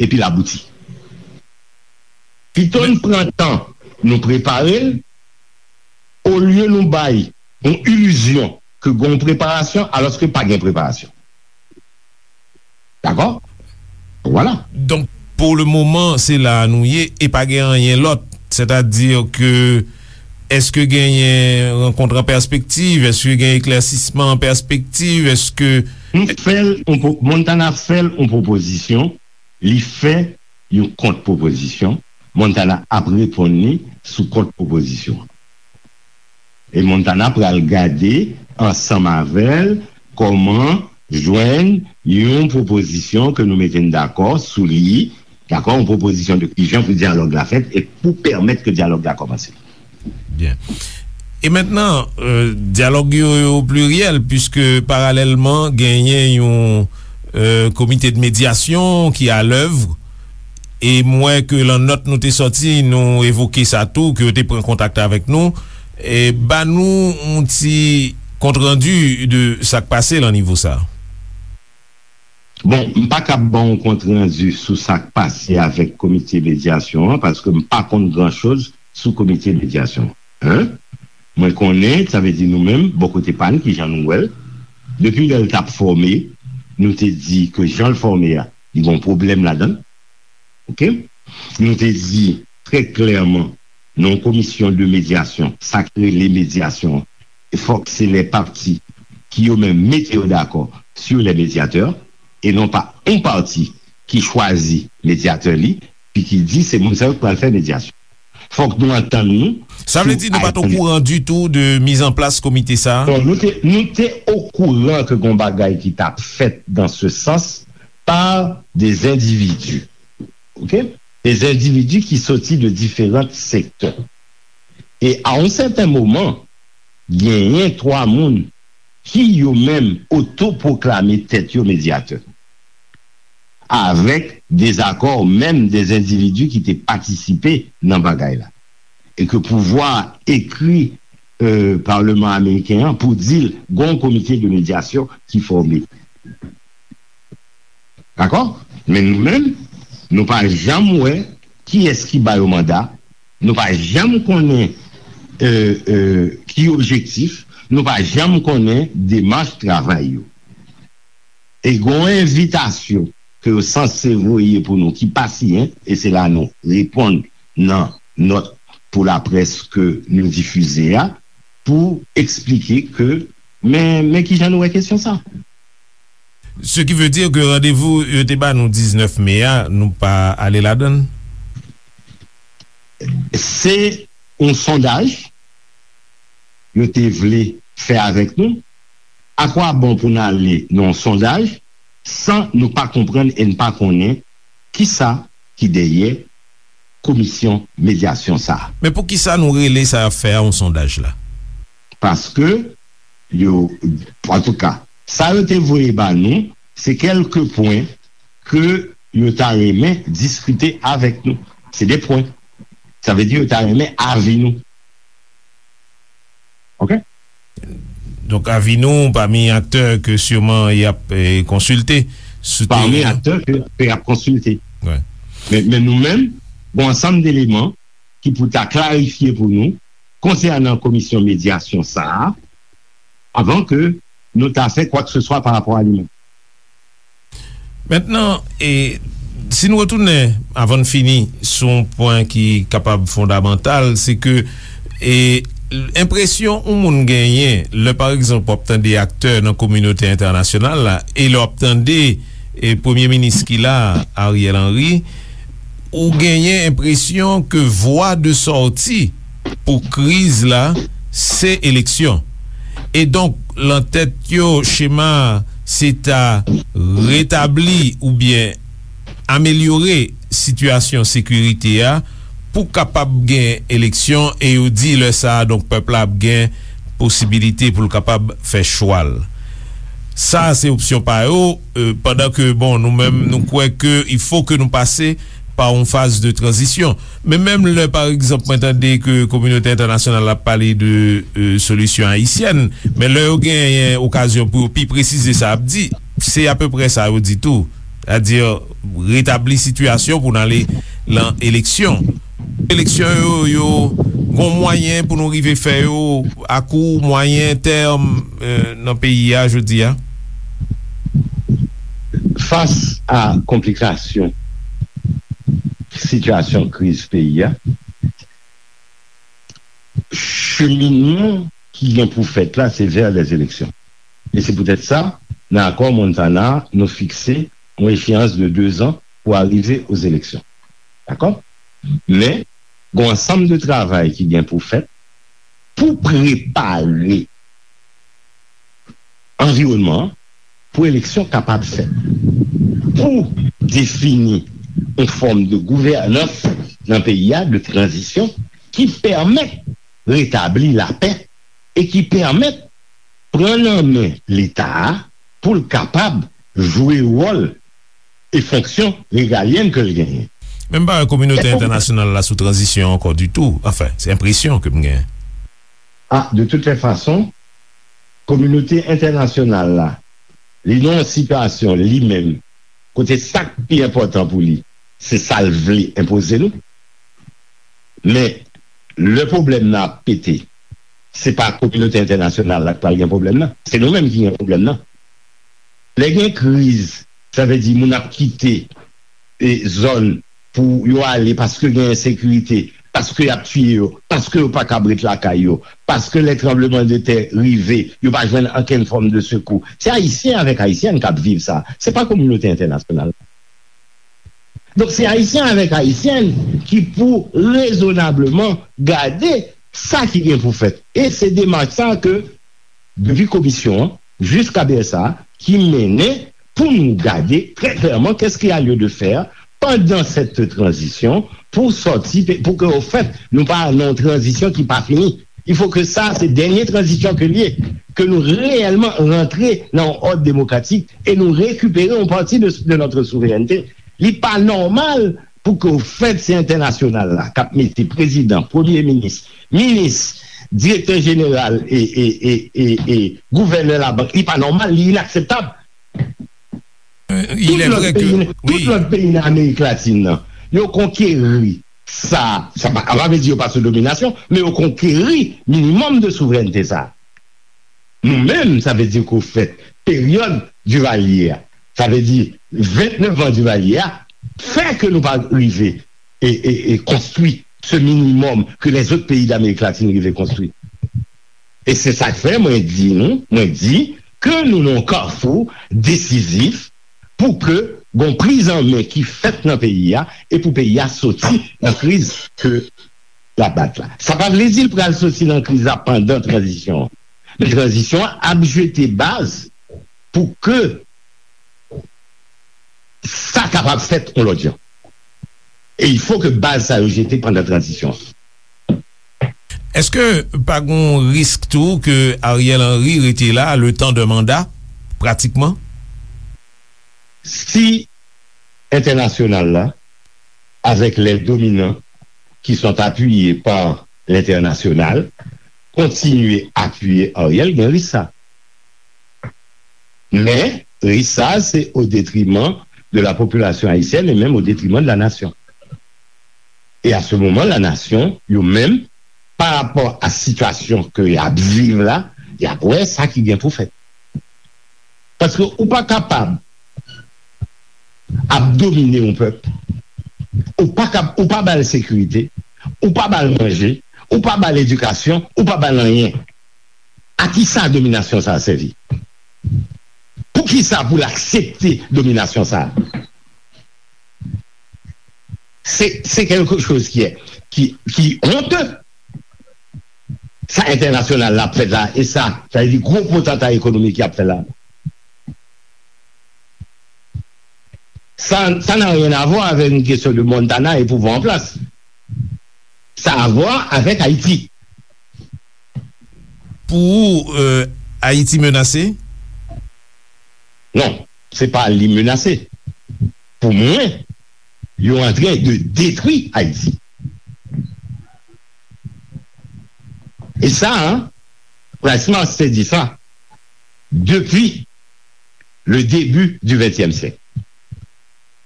epi l abouti. Pito n pran tan nou prepare l, olye nou bay yon ilizyon ke gen yon preparasyon, alòske pa gen preparasyon. Dakò? Vwala. Donk, pou le moman, se la a nou ye e pa gen anyen lòt. Sètadi ke, èske genyen rankont an pèspektiv? Èske gen eklèsisman an pèspektiv? Èske Nou fè l, on pwo- Montana fè l on pwopozisyon, li fè yon kont pwopozisyon, Montana ap reponn li sou kont pwopozisyon. E Montana pral gade ansanm avè l kòman jwenn yon pwopozisyon ke nou mete n dakò sou li, dakò, yon pwopozisyon de kijan pou dyalòg la fèt e pou pèmèt ke dyalòg la kòmanse. Byen. E mentnan, euh, dyalòg yo, yo pliryèl, piske paralèlman genyen yon, euh, komite de medyasyon ki alèv. E m wè ke lan nòt nou te sòti, nou evoke sa tou, ke yo te pran kontak avèk nou. E ba nou yon ti kontrandi de sa k pase lan nivo sa. Bon, m pa kab ba w kontrandi sou sa k pase avèk komite medyasyon an, paske m pa konn gran choz sou komite medyasyon an. Mwen konnen, sa vle di nou menm, bò kote pa n, kijan nou wè l, depi lè l t ap fòme, nou te di ke jan l fòme a, li gen yon pwoblèm ladan l. Oke? Nou te di trè klèman, nan yon komisyon de medyasyon, sa k rele medyasyon an, fòk se lè pati ki yo menm mete yo dakò sur les médiateurs, e non pa yon pati ki chwazi medyatè li, pi ki di se moun sa yo k pral fè medyasyon. Fòk nou antann nou Sa vle sou di nou pa t item. Okouran ditou de mizanplas komite sa a? Non, nou te, nou te okouran ke gon bagay ki t ap fèt dans ce sens par des individus. Oke? Des individus ki soti de diferan sektè. E a yon sèten moman, genyen twa moun ki yo menm otopwoklame tèt yo medyatè. Avèk dezakò menm des individus ki te patisipe nan bagay la. E ke pouvwa ekri, euh, Palman Ameriken an pou di l gon komite de medyasyon ki fòme. Dakò? Men nou menm, nou pa janm wè kiyès ki ba yo manda, nou pa janm konnen, euh, euh, ki objektif, nou pa janm konnen demach travay yo. E gon envitasyon ke yo sanse voye pou nou ki pa siyen, e se la nou reponn nan nòt pou laprès ke nou difize a, pou eksplike ke, men, men kijan nou wè kesyon sa. Ce qui veut dire que randevou yo te ba nou diznèf me a, nou pa ale ladan l? Se yon sondaj yo te vle fè avèk nou. Akwabon pou n ale nan yon sondaj san nou pa konprann e n pa konnen kisa ki dèyè komisyon medyasyon sa a? Men poukisa nou rele sa y ap fè a yon sondaj la? Paske yo, antouka, sa yo te voye ba nou, se kèlke pwen ke yo ta renmen diskite avèk nou. Se de pwen. Sa vle di yo ta renmen avi nou. Oke? Donk, avi nou pami aktè ke siman y ap, eh, konsilte sou teren an. Pami aktè ke, ke y ap konsilte. Wi. Men, men nou menm, gon ansanm deleman ki pou ta klarifye pou nou konsènan komisyon medyasyon sa a, avan ke nou ta fè kwa ke se swa pa rapò a li menm. Mentnan, e, si n retounen, avan n fini, sou yon pwen ki kapab fondamantal, se ke, e, enpresyon yon moun genyen, lè, pa egzanp, w ap tande aktè nan kominote entènasyonal la, e lè w ap tande, e, premye minis ki la, Ariel Henry, ou genyen enpresyon ke vwa de sòti pou kriz la, se eleksyon. E donk, lan tèt yo, chema a, se ta retabli oubyen amelyore sitiyasyon sekirite a pou kapab gen eleksyon, e yo di lè sa a, donk, pèp la ap gen posibilite pou l kapab fè chwa l. Sa a se opsyon pa yo, e, pandan ke, bon, nou menm, nou kwè ke il faut que nou pase pa yon faz de tranzisyon. Men menm lè, pa egzanp, mwen tande ke kominote entènasyonal ap pale de, e, solisyon ayisyèn, men lè yo genyen okazyon pou yo pi presize sa y ap di, se apeprè sa yo di tou. Sètadi, retabli sitiyasyon pou n ale lan eleksyon. Eleksyon yo, yo gon mwayen pou nou rive fè yo a kou, mwayen tèm, e, nan peyi a jodi a? Fas a konplikasyon sitiyasyon kriz peyi a, cheminman ki gen pou fèt la, se vè lèzeleksyon. E se poutèt sa, nan akò Montana, nou fikse yon echeyans de dezan pou arive ozeleksyon. Dakò? Men, gen yon ansanm de travay ki gen pou fèt pou prepare anviwònman an pou eleksyon kapab fèt, pou defini yon fòm de gouvènans nan peyi a, de tranzisyon, ki pèmèt retabli lapè e ki pèmèt pran nan men Leta a pou l kapab jwe wòl e fonksyon regalyèn ke l genyen. Men m pa wè kominote entènasyonal la sou tranzisyon ankò ditou. Anfen, se enpresyon ke m genyen. A, de toutes les façons, kominote entènasyonal la, li nan yon sitiyasyon li menm, kote sa k pi enpòtan pou li, se sa l vle enpoze nou. Men, lè pwoblèm nan ap pete, se pa kominote entènasyonal la k pral gen pwoblèm nan. Se nou menm ki gen pwoblèm nan. Lè gen kriz, sa vle di moun ap kite e zòn pou yo ale paske gen ensekirite, paske y ap tiye yo, paske yo pa kab ret lakay yo, paske lè tranbleman de tè rive, yo pa jwenn okenn fòm de sekou. Se Ayisyen avèk Ayisyèn k ap viv sa. Se pa kominote entènasyonal. Donk, se Ayisyen avèk Ayisyèn ki pou rezonableman gade sa ki gen pou fèt. E se demach sa ke depi komisyon an jiska B S A ki mennen pou nou gade trè klèman qu'est-ce qu'il y a lieu de faire pendant cette transition pour sortir, pou ke, au fait, nou pa nan yon tranzisyon ki pa fini. Il faut que sa, se dènye tranzisyon ke l ye, ke nou reyèlman rantre nan yon òd demokratik e nou rekipere yon pati de, de notre souveraineté. Li pa nòmal pou ke, au fait, se entènasyonal la k ap mete prezidan, premye minis, minis, direktè jeneral e, e, e, e, e gouvènè labank. Li pa nòmal, li inakseptab. Euh, il Tout est lòt vrai que, peyi, tout oui. Lòt peyi nan Amerik Latin nan, yo konkeri sa, sa pa, sa pa vle di yo pa sou dominasyon, men yo konkeri minimòm de souverènte sa. Nou menm, sa vle di ke, au fait, peryòd Divalye a, sa vle di vennèf an Divalye a, fè ke nou pa rive e, e, e konstwi se minimòm ke lèzòt peyi Damerik Latin rive konstwi. E se sa k fè mwen di nou, mwen di ke nou nan yon kafou desizif pou ke gon priz an men ki fèt nan peyi a e pou peyi a soti nan kriz ke l ap bat la. Sa pa vle di l pral soti nan kriz la pandan tranzisyon an. Men tranzisyon an ap jete baz pou ke sa kapab fèt yon lòt jan. E il faut que baz sa yo jete pandan tranzisyon an. Èske pa gon risk tou ke Ariel Henry rete la le temps d'un mandat, pratikman? Si entènasyonal la, avec les dominants qui sont appuyés par l'international, kontinye apiye Ariel, gen risk sa. Men, risk sa, se au détriment de la population haïtienne et même au détriment de la nation. Et à ce moment, la nation, yo menm, pa rapò a sitiyasyon ke y ap viv la, y ap wè sa ki gen pou fèt. Paske ou pa kapab ap domine yon pèp, ou pa kap, ou pa ba l sekirite, ou pa ba l manje, ou pa ba l edikasyon, ou pa ba l anyen. A ki sa dominasyon sa a sèvi? Poukisa pou l aksepte dominasyon sa a? Se, se quelque chose qui est, qui, qui honte. Sa entènasyonal la ap fè la, e sa, sa vle di gwo potanta ekonomik y ap fè la. Ça, ça n'a rien à voir avec une question de Montana et pouvoir en place. Ça a à voir avec Haïti. Pou ou, euh, Ayiti menase? Non, se pa li menase. Pou mwen, yo antren de detwi Ayiti. E sa, Price Mars te di sa depi le début du vingtième siècle.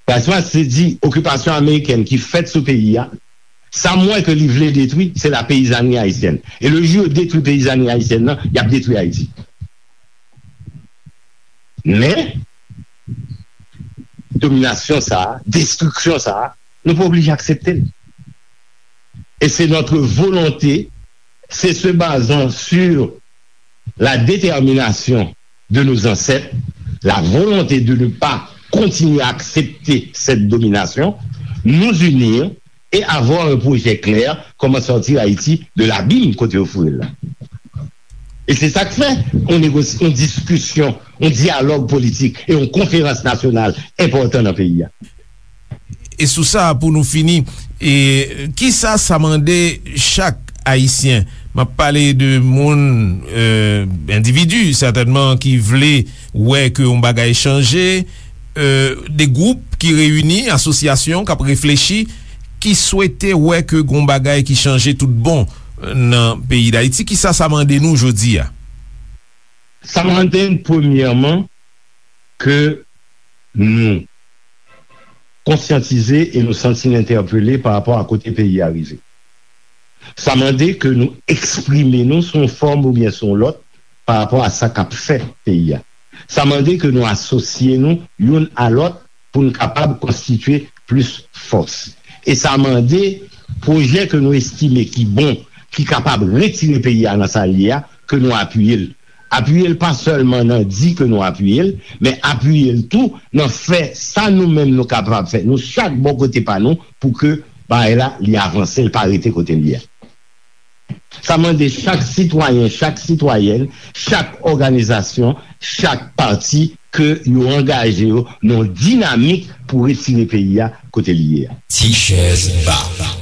Price Mars te di okipasyon amerikèn ki fèt sou peyi a, sa m wè ke li vle detwi, se la peyizanri ayisyèn. E le jou yo detwi peyizanri ayisyèn nan, y ap detwi Ayiti. Men, dominasyon sa a, destriksyon sa a, nou pa oblije aksepte l. Et c'est notre volonté, c'est se basant sur la détermination de nos ancêtres, la volonté de ne pas continuer à accepter cette domination, nous unir et avoir un projet clair, comment sortir Haïti de l'abîme kote yo foure l la. E se sa k fè yon negosi-, yon diskisyon, yon dyalòg politik e yon konferans nasyonal enpòtan nan peyi a. E sou sa, pou nou fini, e, kisa sa mande chak Ayisyen? M ap pale de moun, e, endividi, sètènman, ki vle wè ke yon bagay chanje, e, de gwoup ki reyini, asosyasyon k ap reflechi, ki swete wè ke gon bagay ki chanje tout bon nan peyi Dayiti. Kisa sa mande nou jodi a? Sa mande n, premyèman, ke nou konsyantize e nou santi n entèpele pa rapò a kote peyi a rive. Sa mande ke nou eksprime nou sou yon fòm oubyen sou yon lòt pa rapò a sa k ap fè peyi a. Sa mande ke nou asosye nou youn a lòt pou n kapab konstitye plis fòs. E sa mande pwojè ke nou estime ki bon, ki kapab retire peyi a nan sa l ye a, ke nou apiye l. Apiye l pa sèlman nan di ke nou apiye l, men apiye l tou nan fè sa nou menm nou kapab fè, nou chak bò kote pa nou, pou ke bagay la, li avanse, l pa rete kote l ye a. Sa mande chak sitwayen, chak sitwayèn, chak òganizasyon, chak pati ke yo angaje yo nan yon dinamik pou retire peyi a kote li ye a. Ti chèz ba.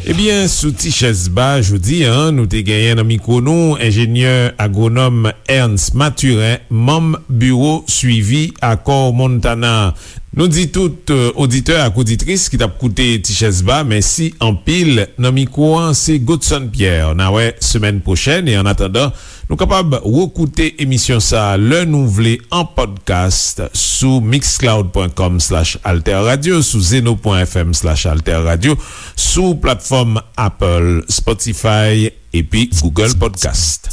Ebyen, sou Ti chèz ba, jodi a, nou te genyen nan mikwo nou enjenyè agwonòm Ernst Mathurin, manm biwo swivi akò Montana. Nou di tout, e, oditè ak oditris ki t ap koute Ti Chèz Ba, mèsi anpil. Nan mikwo an, se Godson Pierre. N a wè semèn pwochèn, e annatandan, nou kapab rekoute emisyon sa a lè nou vle an podcast sou mixcloud pwen kòm slash alterradio, sou zeno pwen fm slash alterradio, sou platfòm Apple, Spotify, epi Google Podcast.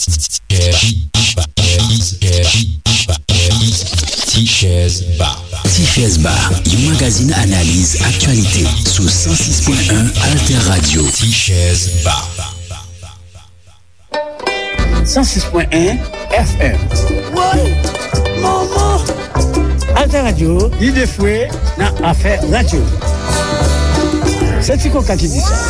Ti Chèz Ba. Ti Chèz Ba, yon magazin analiz aktyalite sou san sis pwen en Alter Radio. Ti Chèz Ba. San sis pwen en F M. Woy! Manman! Alter Radio, lide fre nan afè radyo. Se Ti Koka ki di sa.